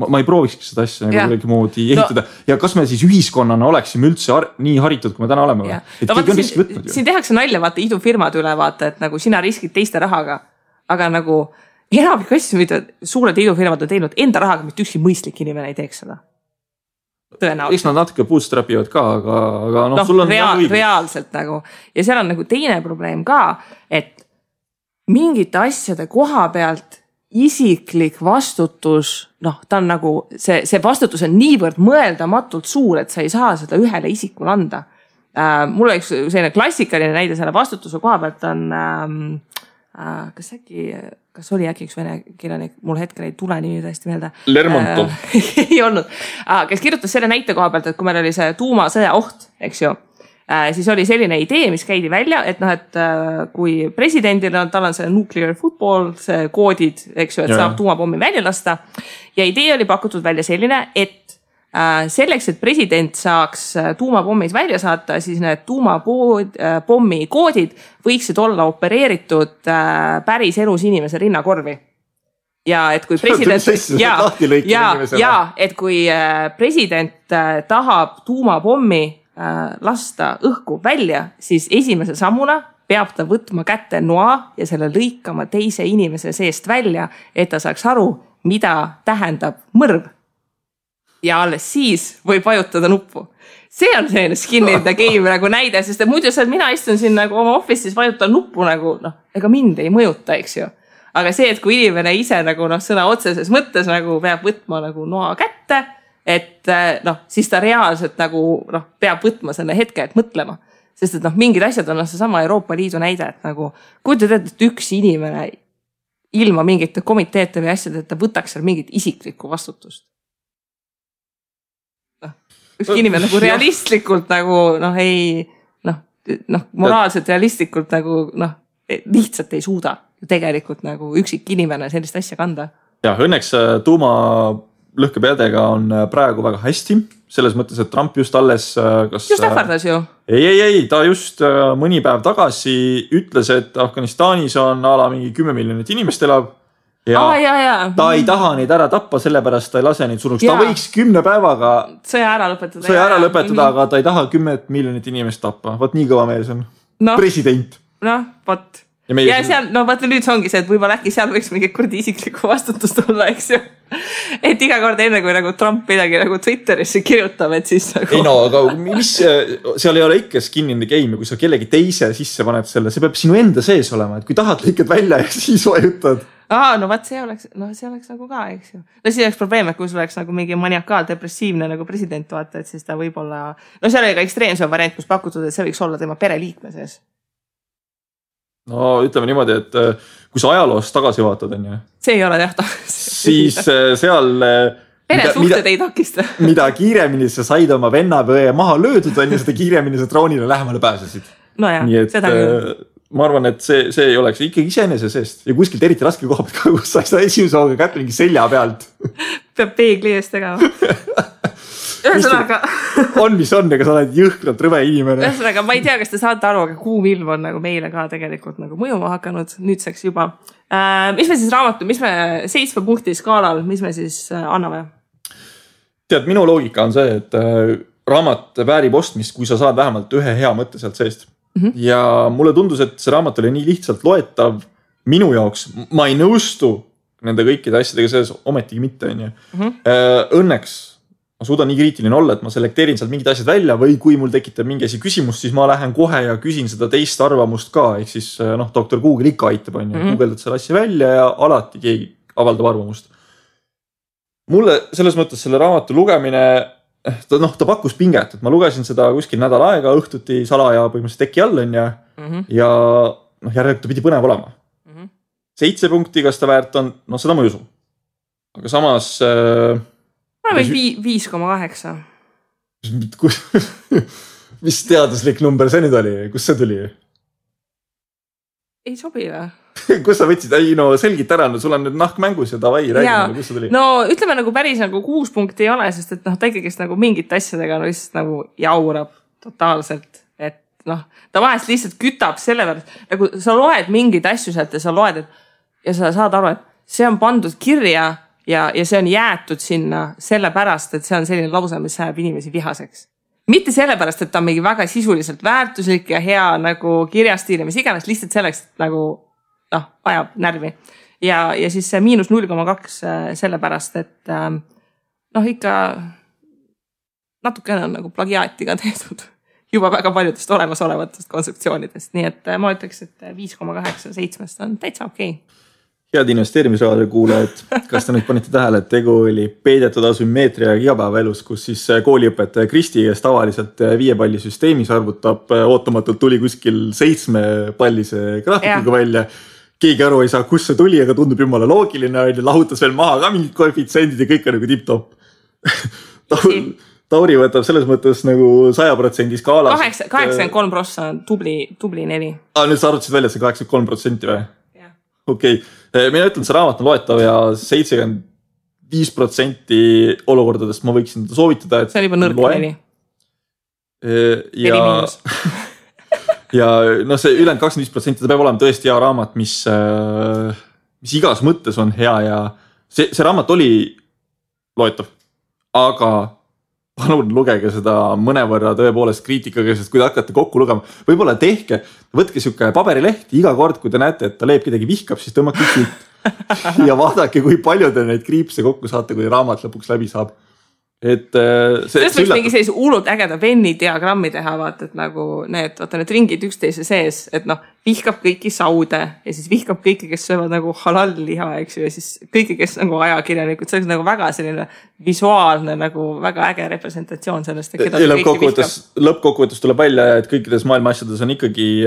ma ei proovikski seda asja nagu kuidagi moodi ehitada ja kas me siis ühiskonnana oleksime üldse nii haritud, kui me täna oleme? Siin tehakse nalja, vaata idufirmad üle, vaata, et nagu sina riskid teiste rahaga, aga nagu enamik asju, mida suured idufirmad on teinud enda rahaga, mitte ükski mõistlik inimene ei teeks seda. Tõenäoliselt. Eks nad natuke bootstrapivad ka, aga sul on reaalselt nagu. Ja seal on nagu teine probleem ka, et mingite asjade koha pealt isiklik vastutus, ta on nagu, see vastutus on niivõrd mõeldamatult suur, et sa ei saa seda ühele isikule anda. Mul oleks selline klassikaline näide selle vastutuse koha pealt on, kas oli äkki üks vene kirjanik, mul hetkel ei tule nimi tõesti meelde. Lermontov. Ei olnud, kes kirjutas selle näite koha pealt, et kui meil oli see tuumasõja oht, eks ju, siis oli selline idee, mis käidi välja, et kui presidendil on, tal on see nuclear football, see koodid, eks ju, et saab tuumapommi välja lasta. Ja idee oli pakutud välja selline, et selleks, et president saaks tuumapommid välja saata, siis need tuumapommi koodid võiksid olla opereeritud päris elus inimese rinnakorvi. Ja et kui president, et kui president tahab tuumapommi lasta õhku välja, siis esimese sammuna peab ta võtma kätte noa ja selle lõikama teise inimese seest välja, et ta saaks aru, mida tähendab mõrv. Ja alles siis võib vajutada nuppu. See on selline skin in the game nagu näide, sest muidu mina istun siin nagu oma office'is vajutan nuppu nagu, ega mind ei mõjuta, eks ju. Aga see, et kui inimene ise nagu sõna otseses mõttes nagu peab võtma nagu noa kätte, et siis ta reaalselt nagu peab võtma selle hetke, et mõtlema. Sest et mingid asjad on see sama Euroopa Liidu näide, et nagu kujutad, et üks inimene ilma mingite komiteete või asjad, et ta võtaks seal mingit isiklikku vastutust. Üks inimene nagu realistlikult nagu moraalselt realistlikult nagu lihtsalt ei suuda tegelikult nagu üksik inimene sellist asja kanda. Ja õnneks tuumalõhkepeadega on praegu väga hästi, selles mõttes, et Trump just alles just ähvardas ju. Ei, ta just mõni päev tagasi ütles, et Afganistanis on mingi 10 miljonit inimest elab ja ta ei taha neid ära tappa, sellepärast ta ei lase neid surnuks. Ta võiks 10 päevaga sõja ära lõpetada, aga ta ei taha 10 miljonit inimest tappa. Vaat nii kõva mees on. President. Vot. Ja seal, vaata nüüd ongi see, et võib-olla äkki seal võiks mingi kurdi isiklikku vastutust olla, eks ju. Et iga kord enne, kui nagu Trump midagi nagu Twitterisse kirjutab, et siis nagu... Ei aga mis, seal ei ole ikka skin in the game, kui sa kellegi teise sisse paned selle, see peab sinu enda sees olema, et kui tahad lõikad välja ja siis vajutad. Vaat see oleks nagu ka, eks ju. Siis oleks probleem, et kui sul oleks nagu mingi maniakaal depressiivne nagu president, vaata, et siis ta võib-olla... seal oli ka ekstreemsem variant, kus pakutud, et see võiks olla tema pereliikme sees. Ütleme niimoodi, et kui sa ajaloost tagasi vaatad, on ju. See ei ole tehta. Siis seal... Peresuhted ei takista. Mida kiiremini sa said oma venna või maha löödud, on ju, seda kiiremini sa troonile lähemale pääsesid. Nii et seda ma arvan, et see ei oleks ikkagi iseenese seest. Ja kuskilt eriti raske koha pealt, kus sa ei saa esimese hooga kätte mingi selja pealt. Peab peegli eest tegema. Ühesõnaga on, mis on, aga sa oled jõhkralt rõve inimene. Ühesõnaga, ma ei tea, kas te saate aru, aga kuum ilm on nagu meile ka tegelikult nagu mõjuma hakanud nüüdseks juba. Mis me siis mis me 7 punkti skaalal, mis me siis anname? Tead, minu loogika on see, et raamat väärib ostmist, kui sa saad vähemalt ühe hea mõtte sealt seest. Ja mulle tundus, et see raamat oli nii lihtsalt loetav minu jaoks. Ma ei nõustu nende kõikide asjadega sees, ometigi mitte. Õnneks ma suudan nii kriitiline olla, et ma selekteerin sealt mingid asjad välja või kui mul tekitab mingi asi küsimust, siis ma lähen kohe ja küsin seda teist arvamust ka. Ehk siis Dr. Google ikka aitab, on ju. Google'dad selle asja välja ja alati keegi avaldab arvamust. Mulle selles mõttes selle raamatu lugemine, ta pakkus pinget, et ma lugesin seda kuskil nädal aega õhtuti salaja põhimõtteliselt teki all on ja järelikult ta pidi põnev olema. 7 punkti, kas ta väärt on, seda ma ei usu. Aga samas... Ma või 5,8. Mis teaduslik number see nüüd oli? Kus see tuli? Ei sobi või? Kus sa võtsid? Selgit ära, sul on nüüd nahk mängus ja davai, räägime, kus see tuli? Ütleme nagu päris nagu 6 punkti ei ole, sest et ta ikkagi nagu mingit asjadega lihtsalt nagu jaurab totaalselt. Et ta vahest lihtsalt kütab selle peale, nagu sa loed mingeid asju sealt ja sa loed, ja sa saad aru, et see on pandud kirja ja see on jäetud sinna sellepärast, et see on selline lause, mis ajab inimesi vihaseks. Mitte sellepärast, et ta on mingi väga sisuliselt väärtuslik ja hea nagu kirjastiil ja mis iganes, lihtsalt selleks, et nagu ajab närvi. Ja siis see -0,2 sellepärast, et ikka natukene on nagu plagiaatiga tehtud juba väga paljudest olemasolevatest konstruktsioonidest. Nii et ma ütleks, et 5,8 7 on täitsa okei. Head investeerimisraade kuulajad, kas te nüüd panite tähele, et tegu oli peidetud asümmeetria igapäevaelus, kus siis kooliõpetaja Kristi, kes tavaliselt 5-pallisüsteemis arvutab, ootamatult tuli kuskil 7-pallise graafikuga välja. Keegi aru ei saa, kus see tuli, aga tundub jumala loogiline, lahutas veel maha ka mingid koefitsendid ja kõik on nagu tip-top. Tauri võtab selles mõttes nagu 100% skaalas. 83% on tubli 4. Nüüd sa arvutasid välja, et see 83% või? Okei, mina ütlen, see raamat on loetav ja 75% olukordadest ma võiksin soovitada, et see on juba nõrk 4. Ja see ülejäänud 25% ta peab olema tõesti hea raamat, mis igas mõttes on hea ja see raamat oli loetav, aga palun lugege seda mõnevõrra tõepoolest kriitikaga, sest kui te hakkate kokku lugema, võib-olla võtke siuke paberileht, iga kord, kui te näete, et ta Leep kedagi vihkab, siis tõmmake siit ja vaadake, kui palju te neid kriipse kokku saate, kui raamat lõpuks läbi saab. Et sellest võiks mingi sellise hullult ägeda Venni diagrammi teha, vaata, et nagu need ringid üksteise sees, et vihkab kõiki saude ja siis vihkab kõiki, kes söövad nagu halal liha, eks ju, ja siis kõiki, kes nagu ajakirjanikud, see oleks nagu väga selline visuaalne, nagu väga äge representatsioon sellest. Lõppkokkuvõttes tuleb välja, et kõikides maailma asjades on ikkagi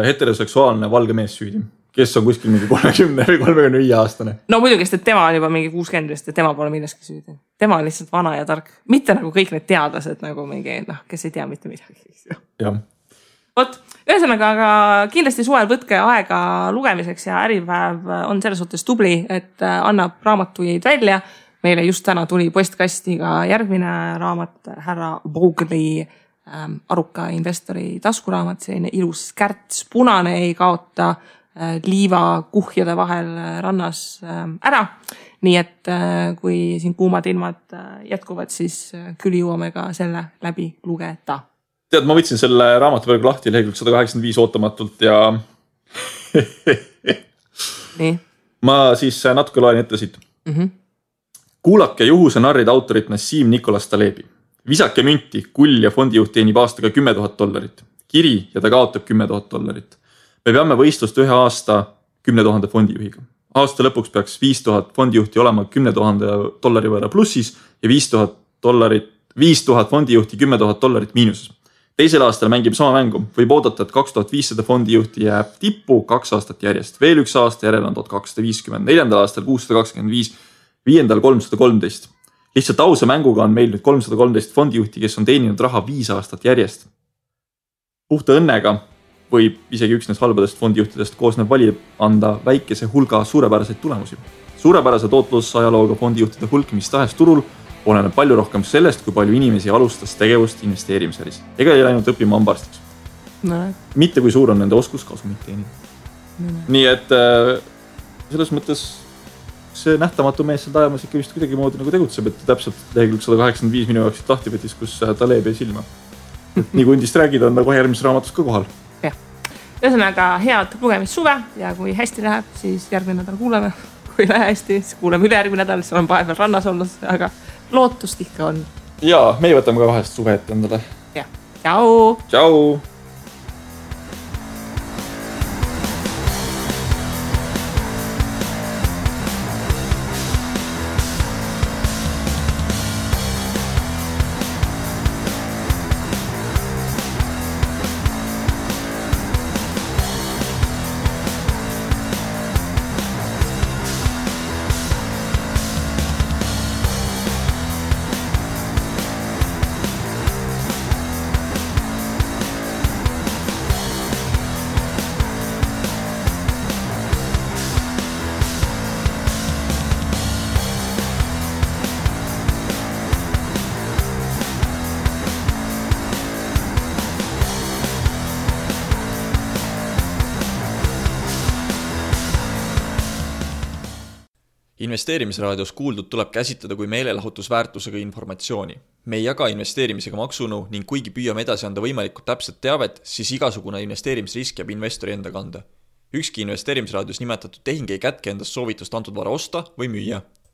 heteroseksuaalne valge mees süüdi, kes on kuskil mingi 30 või 35 aastane. No muidugi, sest tema on juba mingi 60, ja tema pole milleski süüdi. Tema on lihtsalt vana ja tark. Mitte nagu kõik need teadlased nagu mingi, kes ei tea mitte midagi. Jah. Vot, ühesõnaga, aga kindlasti suvel võtke aega lugemiseks ja Äripäev on selles suhtes tubli, et annab raamatuid välja. Meile just täna tuli postkastiga järgmine raamat, härra Brugli aruka investori taskuraamat, selline ilus kärts, punane, ei kaota liiva kuhjade vahel rannas ära. Nii et kui siin kuumad ilmad jätkuvad, siis küll jõuame ka selle läbi lugeda. Tead, ma võtsin selle raamatu praegu lahti lehekülg 185 ootamatult ja nii. Ma siis natuke loen ette siit. Kuulake juhuse narride autorit Nassim Nicholas Talebi. Visake münti, kull ja fondijuht teenib aastaga $10,000. Kiri ja ta kaotab $10,000. Me peame võistlust ühe aasta 10 000 fondijuhiga. Aasta lõpuks peaks 5,000 fondijuhti olema $10,000 võrra plussis ja 5,000 fondijuhti $10,000 miinuses. Teisel aastal mängib sama mängu. Võib oodata, et 2500 fondijuhti jääb tippu 2 aastat järjest. Veel üks aasta järel on 1250. 4. aastal 625, 5. 313. Lihtsalt ausa mänguga on meil nüüd 313 fondijuhti, kes on teeninud raha 5 aastat järjest. Puhta õnnega võib isegi üksnes halbadest fondijuhtidest koosnev valija anda väikese hulga suurepäraseid tulemusi. Suurepärase tootlusajalooga fondijuhtide hulk mis tahes turul oleneb palju rohkem sellest, kui palju inimesi alustas tegevust investeerimisäris. Ega ei läinud õppima hambaarstiks. Mitte kui suur on nende oskus kasumit teenida. Nii et selles mõttes see nähtamatu mees seal tajamas ikka vist kuidagi moodi nagu tegutseb, et täpselt lehekülg 185 minu jaoks lahti võtis, kus Taleb jäi silma. Nii kui undist räägida, on nagu järgmises raamatus ka kohal. Ühesõnaga head lugemist suve ja kui hästi läheb, siis järgmine nädal kuuleme. Kui lähe hästi, siis kuuleme ülejärgmine nädal, siis olen vahepeal rannas olnud, aga lootust ikka on. Jaa, meie võtame ka vahest suve ette endale. Ja, tšau! Tšau! Investeerimisraadios kuuldud tuleb käsitleda kui meelelahutusväärtusega informatsiooni. Me ei jaga investeerimisega maksunu ning kuigi püüame edasi anda võimalikult täpset teavet, siis igasugune investeerimisrisk jääb investori enda kanda. Ükski investeerimisraadios nimetatud tehing ei kätke endast soovitust antud vara osta või müüa.